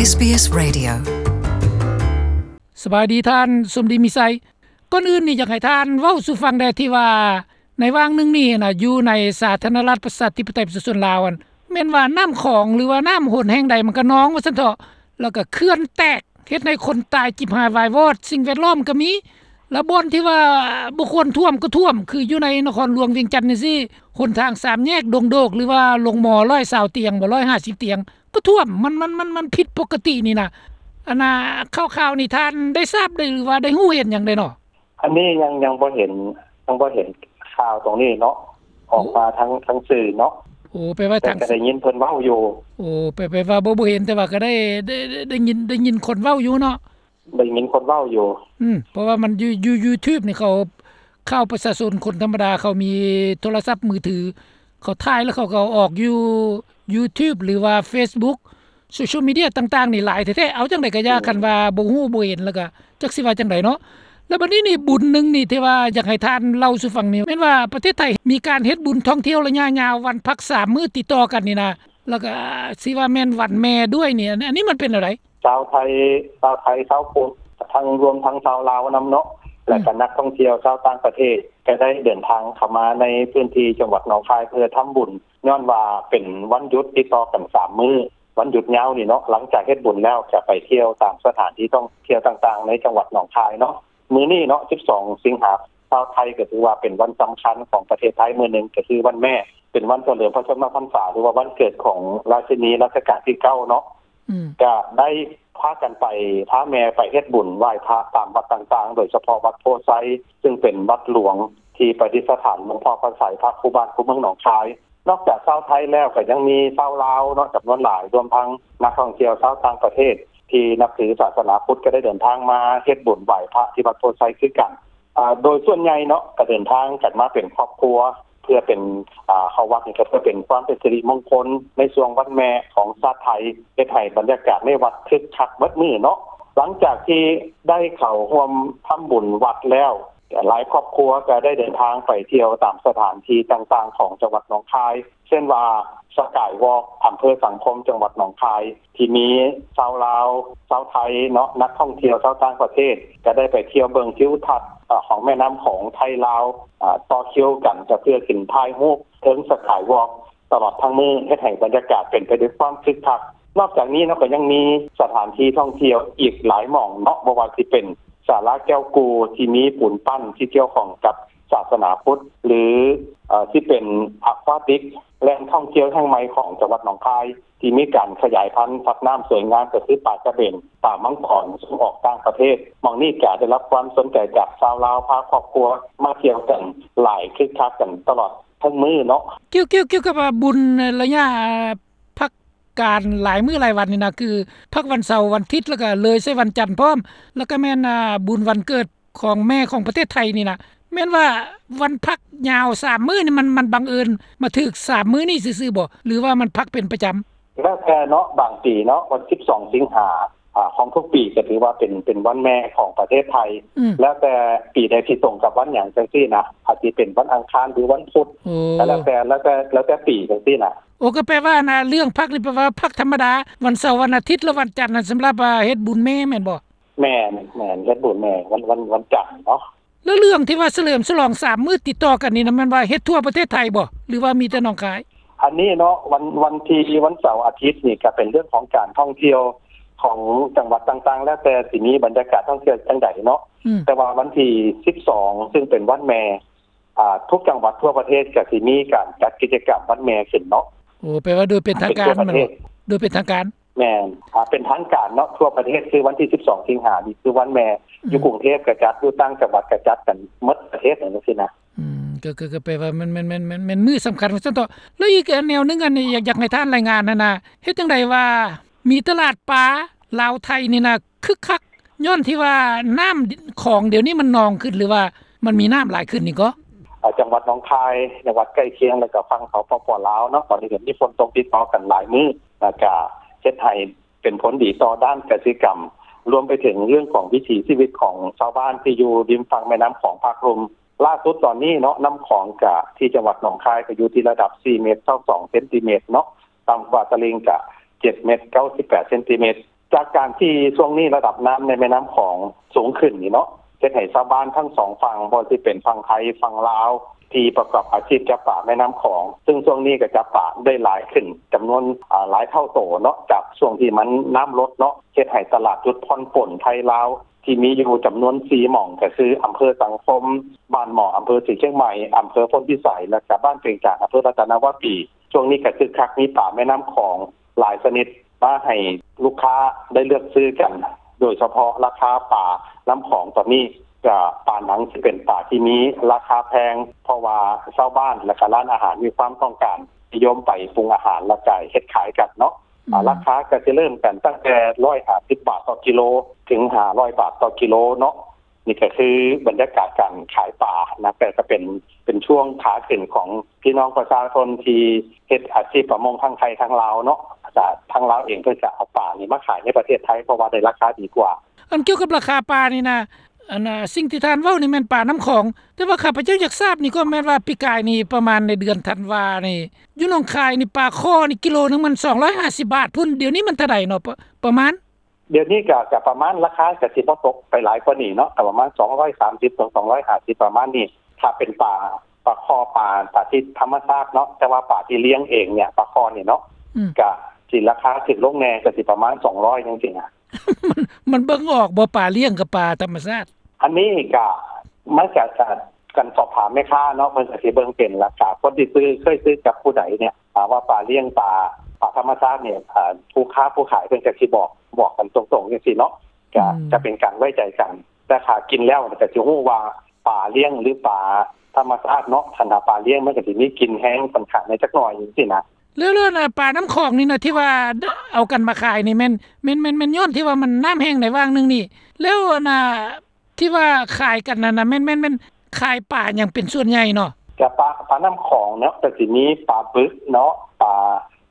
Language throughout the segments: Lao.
ເອສບີເອສ Radio. ສະບາຍດີທ່ານສົມດີມີໄຊ. ກ່ອນອື່ນນີ້ຢາກໃຫ້ທ່ານເວົ້າສູ່ຟັງແດ່ ທີ່ວ່າໃນຫວ່າງໜຶ່ງນີ້ນະ ຢູ່ໃນສາທາລະນະລັດປະຊາທິປະໄຕປະຊາຊົນລາວຫັ້ນ ແມ່ນວ່ານ້ຳຂອງ ຫຼືວ່ານ້ຳຫົນແຫ່ງໃດມັນກະນອງວ່າຊັ້ນເຖາະ ແລ້ວກະເຂື່ອນແຕກ ເຮັດໃຫ້ຄົນຕາຍຈິບຫາຍວາຍວອດ, ສິ່ງແວດລ້ອມກະມີ ແລ້ວບ່ອນທີ່ວ່າບໍ່ຄວນຖ້ວມກໍຖ້ວມ ຄືຢູ່ໃນນະຄອນຫຼວງວຽງຈັນຈັ່ງຊີ້ ຫົນທາງສາມແຍກດົງໂດກ ຫຼືວ່າໂຮງໝໍຮ້ອຍຊາວຕຽງບໍ ຮ້ອຍຫ້າສິບຕຽງ ກໍຖ້ວມ ມັນ ມັນ ມັນ ມັນຜິດປົກກະຕິນີ້ນະ. ອັນນ່າ ຂ່າວໆນີ້ທ່ານໄດ້ຊາບໄດ້ ຫຼືວ່າໄດ້ຮູ້ເຫັນຫຍັງໄດ້ເນາະ? ອັນນີ້ຍັງ ຍັງບໍ່ເຫັນ ຍັງບໍ່ເຫັນຂ່າວຕົງນີ້ເນາະ ອອກມາທາງ ທາງສື່ເນາະ. ໂອ້ ແປວ່າ ແຕ່ກໍໄດ້ຍິນເພິ່ນເວົ້າຢູ່. ໂອ້ ແປ ແປວ່າບໍ່ ບໍ່ເຫັນ ແຕ່ວ່າກໍໄດ້ ໄດ້ ໄດ້ ໄດ້ຍິນ ໄດ້ຍິນຄົນເວົ້າຢູ່ເນາະ. ໄດ້ຍິນຄົນເວົ້າຢູ່. ອືມ ເພາະວ່າມັນຢູ່ ຢູ່ YouTube ນີ້ ເຂົາ ຂ່າວປະຊາຊົນ ຄົນທຳມະດາ ເຂົາມີໂທລະສັບມືຖື ເຂົາຖ່າຍແລ້ວເຂົາກໍເອົາອອກຢູ່ YouTube ຫຼືວ່າ Facebook ໂຊຊຽວມີເດຍຕ່າງໆນີ້ຫຼາຍແທ້ໆ. ເອົາ ຈັ່ງໃດກໍຢ່າ ອືມ ຄັນວ່າບໍ່ຮູ້ບໍ່ເຫັນ ແລ້ວກໍຈັກຊິວ່າຈັ່ງໃດເນາະ. ແລ້ວບັດນີ້ນີ້ ບຸນໜຶ່ງນີ້ທີ່ວ່າຢາກໃຫ້ທ່ານເລົ່າສູ່ຟັງນີ້ ແມ່ນວ່າປະເທດໄທມີການເຮັດບຸນທ່ອງທ່ຽວໄລຍະຍາວ ວັນພັກສາມມື້ຕິດຕໍ່ກັນນີ້ນະ ແລ້ວກໍຊິວ່າແມ່ນວັນແມ່ດ້ວຍນີ້ ອັນ ອັນນີ້ມັນເປັນແນວໃດ? ຊາວໄທ ຊາວໄທ ຊາວພຸດ ທັງ ລວມທັງຊາວລາວນຳເນາະ ແລະ ອືມ ກໍນັກທ່ອງທ່ຽວຊາວຕ່າງປະເທດ ກໍໄດ້ເດີນທາງເຂົ້າມາໃນພື້ນທີ່ຈັງຫວັດໜອງຄາຍ ເພື່ອທຳບຸນ ຍ້ອນວ່າເປັນວັນຢຸດຕິດຕໍ່ກັນສາມມື້ ວັນຢຸດຍາວນີ້ເນາະ. ຫຼັງຈາກເຮັດບຸນແລ້ວ ຈະໄປທ່ຽວຕາມສະຖານທີ່ທ່ອງທ່ຽວຕ່າງໆໃນຈັງຫວັດໜອງຄາຍເນາະ. ມື້ນີ້ເນາະ ສິບສອງ ສິງຫາ ຊາວໄທກໍຖືວ່າເປັນວັນສຳຄັນຂອງປະເທດໄທມື້ໜຶ່ງ ກໍຄືວັນແມ່ ເປັນວັນສະເຫຼີມພະຊົນມະພັນສາ ຫຼືວ່າວັນເກີດຂອງລາຊິນີລັດຊະການທີເກົ້າເນາະ. ອືມ ກະໄດ້ພາກັນໄປ ພາແມ່ໄປເຮັດບຸນໄຫວ້ພະຕາມວັດຕ່າງໆ ໂດຍສະເພາະວັດໂພໄຊ ຊຶ່ງເປັນວັດຫຼວງທີ່ປະດິດສະຖານຫຼວງພໍ່ພະໄຊ ພະຄູ່ບ້ານຄູ່ເມືອງໜອງຄາຍ. ນອກຈາກຊາວໄທແລ້ວ ກໍຍັງມີຊາວລາວເນາະ ຈຳນວນຫຼາຍ ລວມທັງນັກທ່ອງທ່ຽວຊາວຕ່າງປະເທດ ທີ່ນັບຖືສາສະໜາພຸດ ກໍໄດ້ເດີນທາງມາເຮັດບຸນໄຫວ້ພະທີ່ວັດໂພໄຊຄືກັນ. ອາ ໂດຍສ່ວນໃຫຍ່ເນາະ ກໍເດີນທາງກັນມາເປັນຄອບຄົວ ເພື່ອເປັນ ອາ ເຂົ້າວັດນີ້ກໍເພື່ອເປັນຄວາມເປັນສິລິມົງຄົນໃນຊ່ວງວັນແມ່ຂອງຊາດໄທ ເຮັດໃຫ້ບັນຍາກາດໃນວັດຄຶກຄັກເບິດມື້ເນາະ. ຫຼັງຈາກທີ່ໄດ້ເຂົ້າຮ່ວມທຳບຸນວັດແລ້ວ ຫຼາຍຄອບຄົວກໍໄດ້ເດີນທາງໄປທ່ຽວຕາມສະຖານທີ່ຕ່າງໆຂອງຈັງຫວັດໜອງຄາຍ ເຊັ່ນວ່າ ສະກາຍວອກ ອຳເພີສັງຄົມ ຈັງຫວັດໜອງຄາຍ ທີ່ມີຊາວລາວ ຊາວໄທເນາະ ນັກທ່ອງທ່ຽວຊາວຕ່າງປະເທດ ກໍໄດ້ໄປທ່ຽວເບິ່ງທິວທັດ ອາ ຂອງແມ່ນ້ຳຂອງໄທລາວ ອາ ຕໍ່ຄິວກັນ ກໍເພື່ອຂຶ້ນຖ່າຍຮູບເທິງສະກາຍວອກ ຕະຫຼອດທັງມື້ ເຮັດໃຫ້ບັນຍາກາດເປັນໄປດ້ວຍຄວາມຄຶກຄັກ. ນອກຈາກນີ້ເນາະ ກໍຍັງມີສະຖານທີ່ທ່ອງທ່ຽວອີກຫຼາຍໝ່ອງເນາະ ບໍ່ວ່າຊິເປັນສາລາແກ້ວກູ ທີ່ມີປູນປັ້ນທີ່ກ່ຽວຂ້ອງກັບສາສະໜາພຸດ ຫຼື ເອີ ຊິເປັນອາຄວາຕິກ ແຫຼ່ງທ່ອງທ່ຽວແຫ່ງໃໝ່ຂອງຈັງຫວັດໜອງຄາຍ ທີ່ມີການຂະຫຍາຍພັນສັດນ້ຳສວຍງາມ ກໍຄືປາກະເບນ ປາມັງກອນ ສົ່ງອອກຕ່າງປະເທດ. ໝ່ອງນີ້ກະໄດ້ຮັບຄວາມສົນໃຈຈາກຊາວລາວ ພາຄອບຄົວມາທ່ຽວກັນຫຼາຍ ຄຶກຄັກກັນຕະຫຼອດທັງມື້ເນາະ. ກ່ຽວ ກ່ຽວ ກ່ຽວກັບວ່າບຸນໄລຍະ ອາ ພັກການຫຼາຍມື້ຫຼາຍວັນນີ້ນະ ຄືພັກວັນເສົາ ວັນທິດ ແລ້ວກະເລີຍໃສ່ວັນຈັນພ້ອມ ແລ້ວກະແມ່ນ ອາ ບຸນວັນເກີດຂອງແມ່ຂອງປະເທດໄທນີ້ນະ ແມ່ນວ່າວັນພັກຍາວສາມມື້ນີ້ ມັນ ມັນບັງເອີນມາຖືກສາມມື້ນີ້ຊື່ໆບໍ ຫຼືວ່າມັນພັກເປັນປະຈຳ? ແລ້ວແຕ່ເນາະ ບາງປີເນາະ ວັນສິບສອງ ສິງຫາ ອາ ຂອງທຸກປີກໍຖືວ່າເປັນ ເປັນວັນແມ່ຂອງປະເທດໄທ ອືມ ແລ້ວແຕ່ປີໃດທີ່ຕົງກັບວັນຫຍັງຈັ່ງຊີ້ນະ ອາດຊິເປັນວັນອັງຄານ ຫຼື ວັນພຸດ ໂອ້ ກໍແລ້ວແຕ່ ແລ້ວແຕ່ ແລ້ວແຕ່ປີຈັ່ງຊີ້ນະ. ໂອ້ ກໍແປວ່ານະ ເລື່ອງພັກນີ້ແປວ່າພັກທຳມະດາ ວັນເສົາ ວັນອາທິດ ແລະ ວັນຈັນນັ້ນ ສຳລັບ ອາ ເຮັດບຸນແມ່ແມ່ນບໍ່? ແມ່ນ ແມ່ນ ເຮັດບຸນແມ່ ວັນ ວັນ ວັນຈັນເນາະ. ແລ້ວເລື່ອງທີ່ວ່າສະເຫຼີມສະຫຼອງສາມມື້ຕິດຕໍ່ກັນນີ້ນະ ແມ່ນວ່າເຮັດທົ່ວປະເທດໄທບໍ່ ຫຼືວ່າມີແຕ່ໜອງຄາຍ? ອັນນີ້ເນາະ ວັນ ວັນທີ່ ວັນເສົາອາທິດນີ້ກໍເປັນເລື່ອງຂອງການທ່ອງທ່ຽວຂອງຈັງຫວັດຕ່າງໆ ແລ້ວແຕ່ຊິມີບັນຍາກາດທ່ອງທ່ຽວຈັ່ງໃດເນາະ ອືມ ແຕ່ວ່າວັນທີສິບສອງ ຊຶ່ງເປັນວັນແມ່ ອາ ທຸກຈັງຫວັດທົ່ວປະເທດກໍຊິມີການຈັດກິດຈະກຳວັນແມ່ຂຶ້ນເນາະ. ໂອ້ ແປວ່າໂດຍເປັນທາງການແມ່ນບໍ່? ໂດຍເປັນທາງການ. ແມ່ນ ອາ ເປັນທາງການເນາະ ທົ່ວປະເທດ ຄືວັນທີສິບສອງ ສິງຫານີ້ຄືວັນແມ່ ອືມ ຢູ່ກຸງເທບກໍຈັດ ຢູ່ຕ່າງຈັງຫວັດກໍຈັດກັນໝົດປະເທດ ຈັ່ງຊີ້ນະ. ອືມ ກໍ ກໍ ກໍແປວ່າແມ່ນ ແມ່ນ ແມ່ນ ແມ່ນ ແມ່ນມື້ສຳຄັນວ່າຊັ້ນເຖາະ. ແລ້ວອີກແນວໜຶ່ງ ອັນນີ້ຢາກ ຢາກໃຫ້ທ່ານລາຍງານຫັ້ນນະ ເຮັດຈັ່ງໃດວ່າມີຕະຫຼາດປາລາວໄທນີ້ນະ ຄຶກຄັກ ຍ້ອນທີ່ວ່ານ້ຳຂອງດຽວນີ້ມັນນອງຂຶ້ນ ຫຼືວ່າມັນມີນ້ຳຫຼາຍຂຶ້ນນີ້ກໍ? ອາ ຈັງຫວັດໜອງຄາຍ ຈັງຫວັດໃກ້ຄຽງ ແລ້ວກໍຝັ່ງ ສປປ ລາວເນາະ ຕອນນີ້ກໍມີຝົນຕົກຕິດຕໍ່ກັນຫຼາຍມື້ ແລ້ວກໍເຮັດໃຫ້ເປັນຜົນດີຕໍ່ດ້ານກະສິກຳ ລວມໄປເຖິງເລື່ອງຂອງວິຖີຊີວິດຂອງຊາວບ້ານທີ່ຢູ່ລິມຝັ່ງແມ່ນ້ຳຂອງພາກລຸ່ມ. ລ່າສຸດຕອນນີ້ເນາະ ນ້ຳຂອງກະທີ່ຈັງຫວັດໜອງຄາຍກໍຢູ່ທີ່ລະດັບສີ່ເມັດຊາວສອງເຊັນຕີເມັດເນາະ ຕ່ຳກວ່າຕະລິ່ງກະເຈັດເມັດເກົ້າສິບແປດເຊັນຕີເມັດ. ຈາກການທີ່ຊ່ວງນີ້ລະດັບນ້ຳໃນແມ່ນ້ຳຂອງສູງຂຶ້ນນີ້ເນາະ ເຮັດໃຫ້ຊາວບ້ານທັງສອງຝັ່ງ ບໍ່ວ່າຊິເປັນຝັ່ງໄທຝັ່ງລາວ ທີ່ປະກອບອາຊີບຈັບປາແມ່ນ້ຳຂອງ ຊຶ່ງຊ່ວງນີ້ກໍຈັບປາໄດ້ຫຼາຍຂຶ້ນຈຳນວນ ອາ ຫຼາຍເທົ່າໂຕເນາະ ຈາກຊ່ວງທີ່ມັນນ້ຳລົດເນາະ ເຮັດໃຫ້ຕະຫຼາດຈຸດຜ່ອນປົນໄທລາວ ທີ່ມີຢູ່ຈຳນວນສີ່ໝ່ອງ ກໍຄືອຳເພີສັງຄົມ, ບ້ານໝໍ້ ອຳເພີສີຊຽງໃໝ່, ອຳເພີໂພນພິໄສ ແລະກະບ້ານເປງຈານ ອຳເພີລັດຕະນະວາປີ. ຊ່ວງນີ້ກໍຄຶກຄັກ ມີປາແມ່ນ້ຳຂອງຫຼາຍຊະນິດມາໃຫ້ລູກຄ້າໄດ້ເລືອກຊື້ກັນ ໂດຍສະເພາະລາຄາປານ້ຳຂອງຕອນນີ້ ກະປາໜັງຊິເປັນປາທີ່ມີລາຄາແພງ ເພາະວ່າຊາວບ້ານ ແລະກະຮ້ານອາຫານມີຄວາມຕ້ອງການນິຍົມໄປປຸງອາຫານ ແລະກະເຮັດຂາຍກັນເນາະ. ອາ ອືມ ລາຄາກໍຊິເລີ່ມກັນຕັ້ງແຕ່ຮ້ອຍຫ້າສິບບາດຕໍ່ກິໂລ ເຖິງຫ້າຮ້ອຍບາດຕໍ່ກິໂລເນາະ. ນີ້ກໍຄືບັນຍາກາດການຂາຍປານະ ແຕ່ກໍເປັນ ເປັນຊ່ວງຂາຂຶ້ນຂອງພີ່ນ້ອງປະຊາຊົນທີ່ເຮັດອາຊີບປະມົງທັງໄທທັງລາວເນາະ. ອາ ທາງລາວເອງເພິ່ນກໍເອົາປານີ້ມາຂາຍໃນປະເທດໄທ ເພາະວ່າໄດ້ລາຄາດີກວ່າ. ອັນກ່ຽວກັບລາຄາປານີ້ນະ ອັນ ອາ ສິ່ງທີ່ທ່ານເວົ້ານີ້ແມ່ນປານ້ຳຂອງ ແຕ່ວ່າຂ້າພະເຈົ້າຢາກຊາບນີ້ກໍແມ່ນວ່າ ປີກາຍນີ້ປະມານໃນເດືອນທັນວານີ້ ຢູ່ໜອງຄາຍນີ້ ປາຄໍ່ນີ້ກິໂລໜຶ່ງມັນສອງຮ້ອຍຫ້າສິບບາດພຸ້ນ ດຽວນີ້ມັນເທົ່າໃດເນາະ ປະ ປະມານ? ດຽວນີ້ກໍ ກໍປະມານ ລາຄາກໍຊິບໍ່ຕົກໄປຫຼາຍກວ່ານີ້ເນາະ ກໍປະມານສອງຮ້ອຍສາມສິບ ສອງຮ້ອຍຫ້າສິບ ປະມານນີ້ ຖ້າເປັນປາ ປາຄໍ່ ປາ ປາທີ່ທຳມະຊາດເນາະ. ແຕ່ວ່າປາທີ່ລ້ຽງເອງເນຍ ປາຄໍ່ນີ້ເນາະ ອືມ ກໍຊິລາຄາຖືກລົງແດ່ ກໍຊິປະມານສອງຮ້ອຍຈັ່ງຊີ້ນະ. ມັນ ມັນເບິ່ງອອກບໍ່ ປາລ້ຽງກັບປາທຳມະຊາດ? ອັນນີ້ກະ ມັນກະ ກະ ການສອບຖາມແມ່ຄ້າເນາະ ເພິ່ນກະຊິເບິ່ງເປັນ ແລ້ວກະຄົນທີ່ຊື້ ເຄີຍຊື້ກັບຜູ້ໃດເນຍ ຖ້າວ່າປາລ້ຽງ ປາ ປາທຳມະຊາດນີ້ ອາ ຜູ້ຄ້າຜູ້ຂາຍເພິ່ນກະຊິບອກ ບອກກັນຕົງໆຈັ່ງຊີ້ເນາະ ກະ ອືມ ຈະເປັນການໄວ້ໃຈກັນ. ແຕ່ຖ້າກິນແລ້ວກະຊິຮູ້ວ່າປາລ້ຽງ ຫຼື ປາທຳມະຊາດເນາະ. ຄັນຖ້າປາລ້ຽງມັນກະຊິມີກິ່ນແຮງຂ້ອນຂ້າງໃນຈັກໜ້ອຍຈັ່ງຊີ້ນະ. ແລ້ວ ແລ້ວນະ ປານ້ຳຂອງນີ້ນະ ທີ່ວ່າເອົາກັນມາຂາຍນີ້ແມ່ນ ແມ່ນ ແມ່ນ ແມ່ນຍ້ອນທີ່ວ່າມັນນ້ຳແຫ້ງໃນຫວ່າງໜຶ່ງນີ້ ແລ້ວອັນນະ ທີ່ວ່າຂາຍກັນນັ້ນນະ ແມ່ນ ແມ່ນ ແມ່ນຂາຍປາຫຍັງເປັນສ່ວນໃຫຍ່ເນາະ? ກະປາ ປານ້ຳຂອງເນາະ ກະຊິມີປາບຶກເນາະ ປາ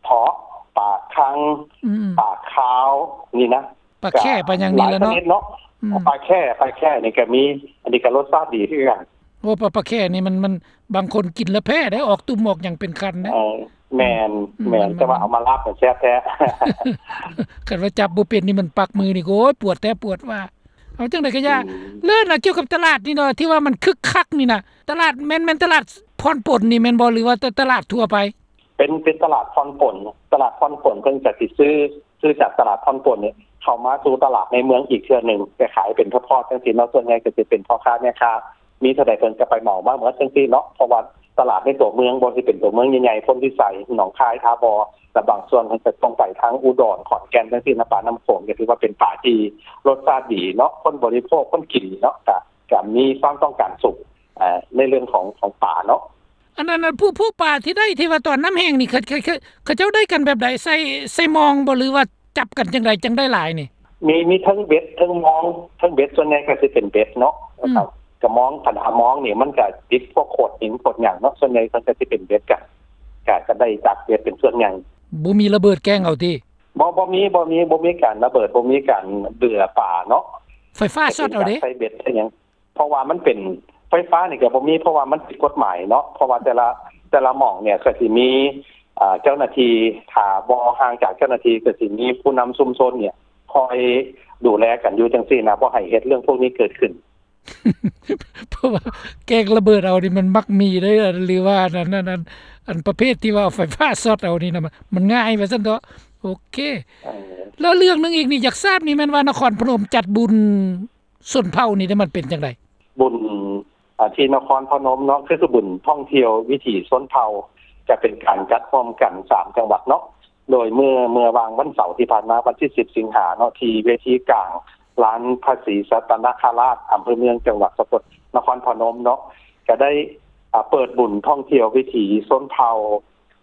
ເທາະ ປາຄັງ ອືມ ປາຄາວນີ້ນະ ປາແຂ້ ກະ ປາຫຍັງນີ້ແຫຼະເນາະ ຫຼາຍຊະນິດເນາະ ອືມ ປາແຂ້ ປາແຂ້ນີ້ກະມີ ອັນນີ້ກະລົດຊາດດີຄືກັນ. ໂອ້ ປາ ປາແຂ້ນີ້ມັນ ມັນ ບາງຄົນກິນແລ້ວແພ້ເດ້ ອອກຕຸ່ມອອກຫຍັງເປັນຄັນເດ້. ເອີ ແມ່ນ ອືມ ແມ່ນ ມັນ ແຕ່ວ່າເອົາມາລາບແຊບແທ້ ຄັນວ່າຈັບບໍ່ເປັນນີ້ມັນປັກມືນີ້ ໂອ້ຍ ປວດແທ້ປວດວ່າ. ເອົາຈັ່ງໃດກໍຢ່າ ອືມ ແລ້ວນະ ກ່ຽວກັບຕະຫຼາດນີ້ເນາະ ທີ່ວ່າມັນຄຶກຄັກນີ້ນະ ຕະຫຼາດແມ່ນ ແມ່ນຕະຫຼາດຜ່ອນປົນນີ້ແມ່ນບໍ່ ຫຼືວ່າຕະຫຼາດທົ່ວໄປ? ເປັນ ເປັນຕະຫຼາດຜ່ອນປົນ ຕະຫຼາດຜ່ອນປົນເພິ່ນກະຊິຊື້ ຊື້ຈາກຕະຫຼາດຜ່ອນປົນນີ້ ເຂົ້າມາສູ່ຕະຫຼາດໃນເມືອງອີກເທື່ອໜຶ່ງ ໄປຂາຍເປັນທອດໆຈັ່ງຊີ້ເນາະ. ສ່ວນໃຫຍ່ກະຊິເປັນພໍ່ຄ້າແມ່ຄ້າ ມີເທົ່າໃດເພິ່ນກະໄປເໝົາມາໝົດຈັ່ງຊີ້ເນາະ ເພາະວ່າຕະຫຼາດໃນຕົວເມືອງ ບໍ່ວ່າຊິເປັນຕົວເມືອງໃຫຍ່ໆ ໂພນພິໄສ ໜອງຄາຍ ທ່າບໍ່ ແລະບາງສ່ວນເພິ່ນກະສົ່ງໄປທາງອຸດອນ ຂອນແກ່ນຈັ່ງຊີ້ນະ ປານ້ຳຂອງ ກະຖືວ່າເປັນປາທີ່ລົດຊາດດີເນາະ ຄົນບໍລິໂພກ ຄົນກິນເນາະ ກະ ກະມີຄວາມຕ້ອງການສູງ ອາ ໃນເລື່ອງຂອງ ຂອງປາເນາະ. ອັນນັ້ນ ອັນ ພວກ ພວກປາທີ່ໄດ້ ທີ່ວ່າຕອນນ້ຳແຫ້ງນີ້ ເຂົາ ເຂົາ ເຂົາ ເຂົາເຈົ້າໄດ້ກັນແບບໃດ ໃສ່ ໃສ່ມອງບໍ່ ຫຼືວ່າຈັບກັນຈັ່ງໃດ ຈັ່ງໄດ້ຫຼາຍນີ້? ມີ ມີເທິງເບັດ ເທິງມອງ ເທິງເບັດ ສ່ວນໃຫຍ່ກະຊິເປັນເບັດເນາະ ອືມ ກະມອງ ຄັນຫາມອງນີ້ມັນກະຕິດພວກໂຂດຫີນໂຂດຫຍັງເນາະ ສ່ວນໃຫຍ່ເພິ່ນກະຊິເປັນເບັດກັນ ກະ ກະໄດ້ຈາກເບັດເປັນສ່ວນໃຫຍ່. ບໍ່ມີລະເບີດແກ້ງເອົາຕິ? ບໍ່ ບໍ່ມີ ບໍ່ມີ ບໍ່ມີການລະເບີດ ບໍ່ມີການເບືອປາເນາະ. ໄຟຟ້າຊັອດເອົາເດ້? ໃສ່ເບັດໃສ່ຫຍັງ ເພາະວ່າມັນເປັນ ໄຟຟ້ານີ້ກະບໍ່ມີ ເພາະວ່າມັນຜິດກົດໝາຍເນາະ ເພາະວ່າແຕ່ລະ ແຕ່ລະໝ່ອງເນຍກະຊິມີ ອາ ເຈົ້າໜ້າທີ່ ຖ້າບໍ່ຫ່າງຈາກເຈົ້າໜ້າທີ່ກະຊິມີຜູ້ນຳຊຸມຊົນເນຍ ຄອຍດູແລກັນຢູ່ຈັ່ງຊີ້ນະ ບໍ່ໃຫ້ເຮັດເລື່ອງພວກນີ້ເກີດຂຶ້ນ. ເພາະວ່າແກ້ງລະເບີດເອົານີ້ມັນມັກມີເດ້ ຫຼືວ່າອັນນັ້ນ ອັນ ອັນປະເພດທີ່ວ່າເອົາໄຟຟ້າຊັອດເອົານີ້ນະ ມັນ ມັນງ່າຍວ່າຊັ້ນເຖາະ. ໂອເຄ ເອີ ແລ້ວເລື່ອງໜຶ່ງອີກນີ້ ຢາກຊາບນີ້ແມ່ນວ່ານະຄອນພະນົມຈັດບຸນ ຊົນເຜົ່ານີ້ເດ້ ມັນເປັນຈັ່ງໃດ? ບຸນ ອາ ທີ່ນະຄອນພະນົມເນາະ ຄື ຄືບຸນທ່ອງທ່ຽວວິຖີຊົນເຜົ່າ ຈະເປັນການຈັດຮ່ວມກັນສາມຈັງຫວັດເນາະ ໂດຍເມື່ອ ເມື່ອຫວ່າງວັນເສົາທີ່ຜ່ານມາ ວັນທີສິບສິງຫາເນາະ ທີ່ເວທີກາງລານພະສີສັດຕະນະຄະລາດ ອຳເພີເມືອງ ຈັງຫວັດສະກົດນະຄອນພະນົມເນາະ ກະໄດ້ ອາ ເປີດບຸນທ່ອງທ່ຽວວິຖີຊົນເຜົ່າ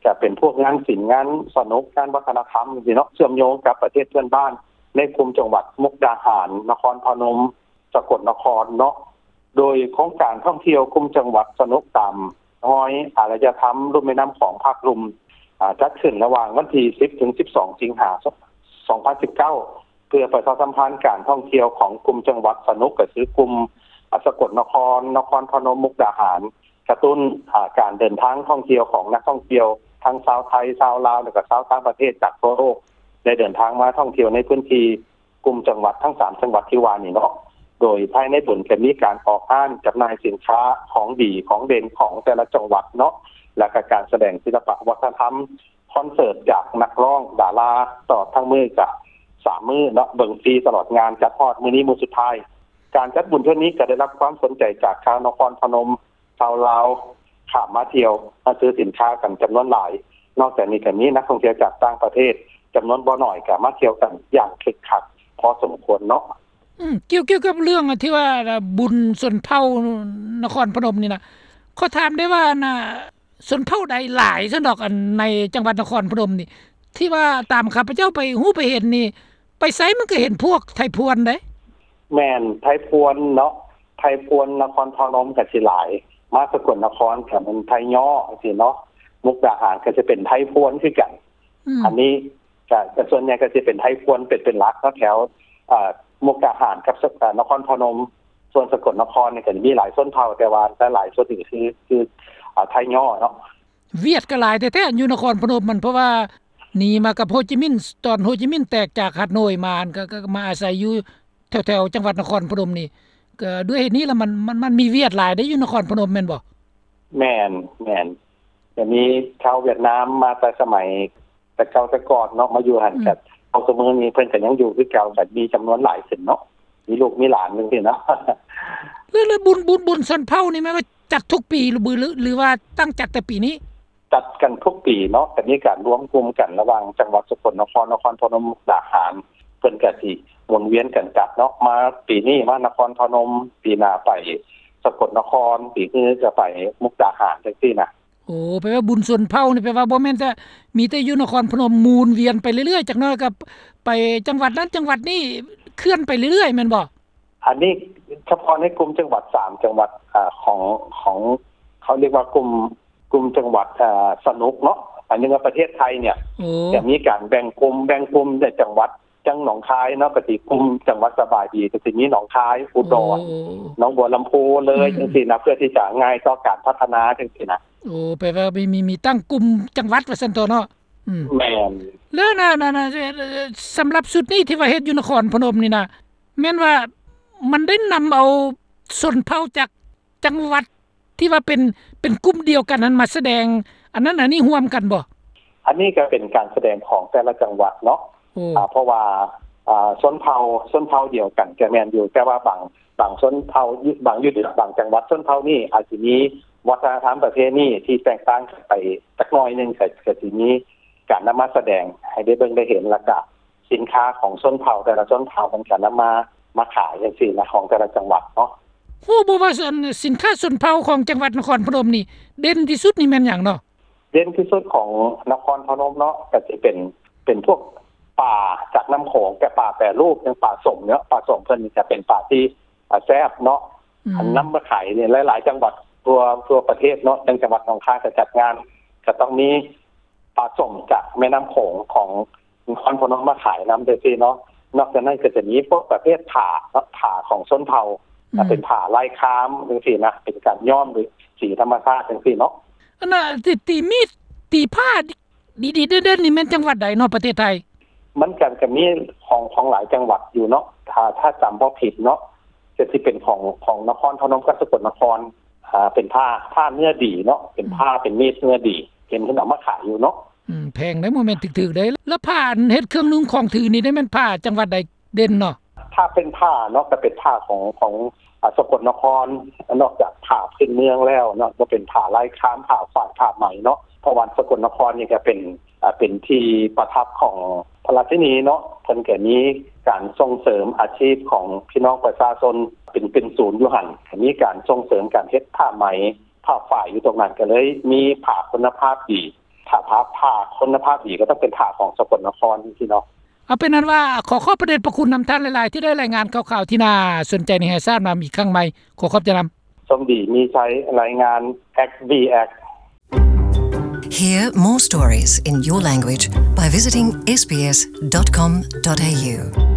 ກະເປັນພວກງານສິນ ງານສະໜຸກ ງານວັດທະນະທຳຈັ່ງຊີ້ເນາະ ເຊື່ອມໂຍງກັບປະເທດເພື່ອນບ້ານ ໃນກຸ່ມຈັງຫວັດມຸກດາຫານ ນະຄອນພະນົມ ສະກົດນະຄອນເນາະ ໂດຍໂຄງການທ່ອງທ່ຽວກຸ່ມຈັງຫວັດສະໜຸກຕາມຮອຍອາລະຍະທຳລຸ່ມແມ່ນ້ຳຂອງພາກລຸ່ມ ອາ ຈັດຂຶ້ນລະຫວ່າງວັນທີສິບ ເຖິງສິບສອງ ສິງຫາ ສອງພັນສິບເກົ້າ ເພື່ອປະຊາສຳພັນການທ່ອງທ່ຽວຂອງກຸ່ມຈັງຫວັດສະໜຸກ ກໍຄືກຸ່ມ ອາ ສະກົດນະຄອນ, ນະຄອນພະນົມ, ມຸກດາຫານ, ກະຕຸ້ນ ອາ ການເດີນທາງທ່ອງທ່ຽວຂອງນັກທ່ອງທ່ຽວທັງຊາວໄທ, ຊາວລາວ ແລະກະຊາວຕ່າງປະເທດຈາກທົ່ວໂລກ. ໄດ້ເດີນທາງມາທ່ອງທ່ຽວໃນພື້ນທີ່ກຸ່ມຈັງຫວັດທັງສາມຈັງຫວັດທີ່ວ່ານີ້ເນາະ. ໂດຍພາຍໃນບຸນຈະມີການອອກຮ້ານຈຳໜ່າຍສິນຄ້າຂອງດີຂອງເດັ່ນຂອງແຕ່ລະຈັງຫວັດເນາະ ແລ້ວກໍການສະແດງສິລະປະວັດທະນະທຳ ຄອນເສີດຈາກນັກຮ້ອງດາລາ ຕະຫຼອດທັງມື້ກະສາມມື້ເນາະ ເບິ່ງຟຣີຕະຫຼອດງານ ຈັດຮອດມື້ນີ້ມື້ສຸດທ້າຍ. ການຈັດບຸນເທື່ອນີ້ກໍໄດ້ຮັບຄວາມສົນໃຈຈາກຊາວນະຄອນພະນົມ, ຊາວລາວ ຂ້າມມາທ່ຽວມາຊື້ສິນຄ້າກັນຈຳນວນຫຼາຍ. ນອກຈາກນີ້ກໍມີນັກທ່ອງທ່ຽວຈາກຕ່າງປະເທດຈຳນວນບໍ່ໜ້ອຍກໍມາທ່ຽວກັນຢ່າງຄຶກຄັກພໍສົມຄວນເນາະ. ອືມ ກ່ຽວ ກ່ຽວກັບເລື່ອງທີ່ວ່າບຸນຊົນເຜົ່ານະຄອນພະນົມນີ້ນະ ຂໍຖາມໄດ້ວ່າ ອັນນ່າ ຊົນເຜົ່າໃດຫຼາຍຊັ້ນດອກ ອັນໃນຈັງຫວັດນະຄອນພະນົມນີ້ ທີ່ວ່າຕາມຂ້າພະເຈົ້າໄປຮູ້ໄປເຫັນນີ້ ໄປໃສມັນກໍເຫັນພວກໄທພວນເດ້. ແມ່ນ ໄທພວນເນາະ ໄທພວນນະຄອນພະນົມກໍຊິຫຼາຍ ມາສະກົນນະຄອນກໍແມ່ນໄທຍໍ້ຈັ່ງຊີ້ເນາະ ມຸກດາຫານກໍຈະເປັນໄທພວນຄືກັນ. ອືມ ອັນນີ້ກໍສ່ວນໃຫຍ່ກໍຈະເປັນໄທພວນເປັນ ເປັນຫຼັກເນາະ ແຖວ ເອີ ມຸກດາຫານກັບ ເອີ ນະຄອນພະນົມ. ສ່ວນສະກົນນະຄອນນີ້ກໍຈະມີຫຼາຍຊົນເຜົ່າ ແຕ່ວ່າຫຼາຍໆ ສ່ວນໜຶ່ງຄື ຄື ເອີ ໄທຍໍ້ເນາະ. ຫວຽດກໍຫຼາຍແທ້ໆ ຢູ່ນະຄອນພະນົມຫັ້ນ ເພາະວ່າໜີມາກັບໂຮຈິມິນ ຕອນໂຮຈິມິນແຕກຈາກຮາໂນ້ຍມາ ກໍ ກໍມາອາໄສຢູ່ແຖວໆ ຈັງຫວັດນະຄອນພະນົມນີ້. ກໍດ້ວຍເຫດນີ້ລະ ມັນ ມັນ ມັນມີຫວຽດຫຼາຍເດ້ຢູ່ນະຄອນພະນົມແມ່ນບໍ່? ແມ່ນ ແມ່ນ ກໍມີຊາວຫວຽດນາມມາແຕ່ສະໄໝ ແຕ່ເກົ່າແຕ່ກ່ອນເນາະ ມາຢູ່ຫັ້ນ. ອືມ ກໍເທົ່າຊຸມື້ນີ້ເພິ່ນກໍຍັງຢູ່ຄືເກົ່າ ກໍມີຈຳນວນຫຼາຍຂຶ້ນເນາະ ມີລູກມີຫຼານຈັ່ງຊີ້ເນາະ. ແລ້ວ ແລ້ວບຸນ ບຸນ ບຸນຊົນເຜົ່ານີ້ແມ່ນວ່າຈັດທຸກປີ ຫຼື ຫຼືວ່າຕັ້ງຈັດແຕ່ປີນີ້? ຈັດກັນທຸກປີເນາະ ກໍມີການລວມກຸ່ມກັນລະຫວ່າງຈັງຫວັດສະກົນນະຄອນ, ນະຄອນພະນົມ, ມຸກດາຫານ ເພິ່ນກໍຊິໝູນວຽນກັນຈັດເນາະ. ມາປີນີ້ມານະຄອນພະນົມ, ປີໜ້າໄປສະກົນນະຄອນ, ປີອື່ນກໍໄປມຸກດາຫານ ຈັ່ງຊີ້ນະ. ໂອ້ ແປວ່າບຸນຊົນເຜົ່ານີ້ ແປວ່າບໍ່ແມ່ນແຕ່ມີແຕ່ຢູ່ນະຄອນພະນົມ ໝູນວຽນໄປເລື້ອຍໆ ຈັກໜ້ອຍກໍໄປຈັງຫວັດນັ້ນຈັງຫວັດນີ້ ເຄື່ອນໄປເລື້ອຍໆ ແມ່ນບໍ່? ອັນນີ້ສະເພາະໃນກຸ່ມຈັງຫວັດສາມຈັງຫວັດ ອາ ຂອງ ຂອງ ເຂົາຮຽກວ່າກຸ່ມ ກຸ່ມຈັງຫວັດ ອາ ສະໜຸກເນາະ ອັນນີ້ວ່າປະເທດໄທເນຍ ໂອ້ ຈະມີການແບ່ງກຸ່ມ ແບ່ງກຸ່ມໃນຈັງຫວັດ ຈັ່ງໜອງຄາຍເນາະ ກໍຊິກຸ່ມຈັງຫວັດສະບາຍດີ ກໍຊິມີໜອງຄາຍ ອຸດອນ ໂອ້ ໜອງບົວລຳພູ ເລີຍ ອືມ ຈັ່ງຊີ້ນະ ເພື່ອທີ່ຈະງ່າຍຕໍ່ການພັດທະນາຈັ່ງຊີ້ນະ. ໂອ້ ແປວ່າມີ ມີ ມີຕັ້ງກຸ່ມຈັງຫວັດວ່າຊັ້ນເຖາະເນາະ. ອືມ ແມ່ນ ແລ້ວນະ ນະ ນະ ສຳລັບຊຸດນີ້ທີ່ວ່າເຮັດຢູ່ນະຄອນພະນົມນີ້ນະ ແມ່ນວ່າມັນໄດ້ນຳເອົາຊົນເຜົ່າຈາກ ຈັງຫວັດທີ່ວ່າເປັນ ເປັນກຸ່ມດຽວກັນນັ້ນມາສະແດງອັນນັ້ນອັນນີ້ຮ່ວມກັນບໍ່? ອັນນີ້ກໍເປັນການສະແດງຂອງແຕ່ລະຈັງຫວັດເນາະ ອາ ເພາະວ່າ ອາ ຊົນເຜົ່າ ຊົນເຜົ່າດຽວກັນກໍແມ່ນຢູ່ ແຕ່ວ່າບາງ ບາງຊົນເຜົ່າ ບາງ ຢູ່ບາງຈັງຫວັດ ຊົນເຜົ່ານີ້ອາດຊິມີວັດທະນະທຳປະເພນີທີ່ແຕກຕ່າງກັນໄປຈັກໜ້ອຍໜຶ່ງ ກໍ ກໍຊິມີການນຳມາສະແດງໃຫ້ໄດ້ເບິ່ງໄດ້ເຫັນ ແລ້ວກະ ສິນຄ້າຂອງຊົນເຜົ່າແຕ່ລະຊົນເຜົ່າ ເພິ່ນກໍນຳມາ ມາຂາຍຈັ່ງຊີ້ນະ ຂອງແຕ່ລະຈັງຫວັດເນາະ. ຮູ້ບໍ່ວ່າ ອັນ ສິນຄ້າຊົນເຜົ່າຂອງຈັງຫວັດນະຄອນພະນົມນີ້ ເດັ່ນທີ່ສຸດນີ້ແມ່ນຫຍັງເນາະ? ເດັ່ນທີ່ສຸດຂອງນະຄອນພະນົມເນາະ ກໍຊິເປັນ ເປັນພວກປາຈາກນ້ຳໂຂງ ແຕ່ປາແປຮູບ ຢ່າງປາສົ້ມເນາະ ປາສົ້ມເພິ່ນນີ້ຈະເປັນປາທີ່ ອາ ແຊບເນາະ ອືມ ອັນນຳມາຂາຍນີ້ ຫຼາຍໆ ຈັງຫວັດທົ່ວ ທົ່ວປະເທດເນາະ ຢ່າງຈັງຫວັດໜອງຄາຍກໍຈັດງານ ກໍຕ້ອງມີ ປາສົ້ມຈາກແມ່ນ້ຳໂຂງຂອງນະຄອນພະນົມມາຂາຍນຳຈັ່ງຊີ້ເນາະ. ນອກຈາກນັ້ນກໍຈະມີພວກປະເພດຜ້າເນາະ ຜ້າຂອງຊົນເຜົ່າ ອືມ ເປັນຜ້າລາຍຄາມຈັ່ງຊີ້ນະ ເປັນການຍ້ອມໂດຍສີທຳມະຊາດຈັ່ງຊີ້ເນາະ. ອັນນ່າ ຕີ ຕີມີດ ຕີຜ້າດີໆ ເດັ່ນໆ ນີ້ແມ່ນຈັງຫວັດໃດເນາະ ປະເທດໄທ? ມັນກໍ ກໍມີຂອງ ຂອງຫຼາຍຈັງຫວັດຢູ່ເນາະ ຖ້າ ຖ້າຈຳບໍ່ຜິດເນາະ ກໍຊິເປັນຂອງ ຂອງນະຄອນພະນົມກັບສະກົນນະຄອນ ອ່າ ເປັນຜ້າ ຜ້າເນື້ອດີເນາະ ເປັນ ອືມ ຜ້າ ເປັນມີດເນື້ອດີ ເຫັນເພິ່ນເອົາມາຂາຍຢູ່ເນາະ. ອືມ ແພງເດ້ ບໍ່ແມ່ນຖືກໆ ເດ້. ແລ້ວຜ້າອັນເຮັດເຄື່ອງນຸ່ງຂອງຖືນີ້ ໄດ້ແມ່ນຜ້າຈັງຫວັດໃດເດັ່ນເນາະ? ຖ້າເປັນຜ້າເນາະ ກໍເປັນຜ້າຂອງ ຂອງ ອ່າ ສະກົນນະຄອນ ນອກຈາກຜ້າພື້ນເມືອງແລ້ວເນາະ ກໍເປັນຜ້າລາຍຄາມ ຜ້າຝ້າຍ ຜ້າໄໝເນາະ ເພາະວ່າສະກົນນະຄອນນີ້ກໍເປັນ ອ່າ ເປັນທີ່ປະທັບຂອງພະລາຊິນີເນາະ ເພິ່ນກໍມີການສົ່ງເສີມອາຊີບຂອງພີ່ນ້ອງປະຊາຊົນເປັນ ເປັນສູນຢູ່ຫັ້ນ ກໍມີການສົ່ງເສີມການເຮັດຜ້າໄໝ ຜ້າຝ້າຍຢູ່ຕົງນັ້ນ ກໍເລີຍມີຜ້າຄຸນນະພາບດີ. ຖ້າຜ້າ ຜ້າຄຸນນະພາບດີກໍຕ້ອງເປັນຜ້າຂອງສະກົນນະຄອນຊີ້ເນາະ. ເອົາເປັນອັນວ່າ ຂໍຂອບພະເດດພະຄຸນນຳທ່ານຫຼາຍໆ ທີ່ໄດ້ລາຍງານຂ່າວໆ ທີ່ໜ້າສົນໃຈໃຫ້ແຫ່ຊາບນຳອີກຄັ້ງໃໝ່. ຂໍຂອບໃຈນຳ. ສົມດີມີໄຊ ລາຍງານ ເອັກບີເອັກ. Hear more stories in your language by visiting S B S dot com dot A U.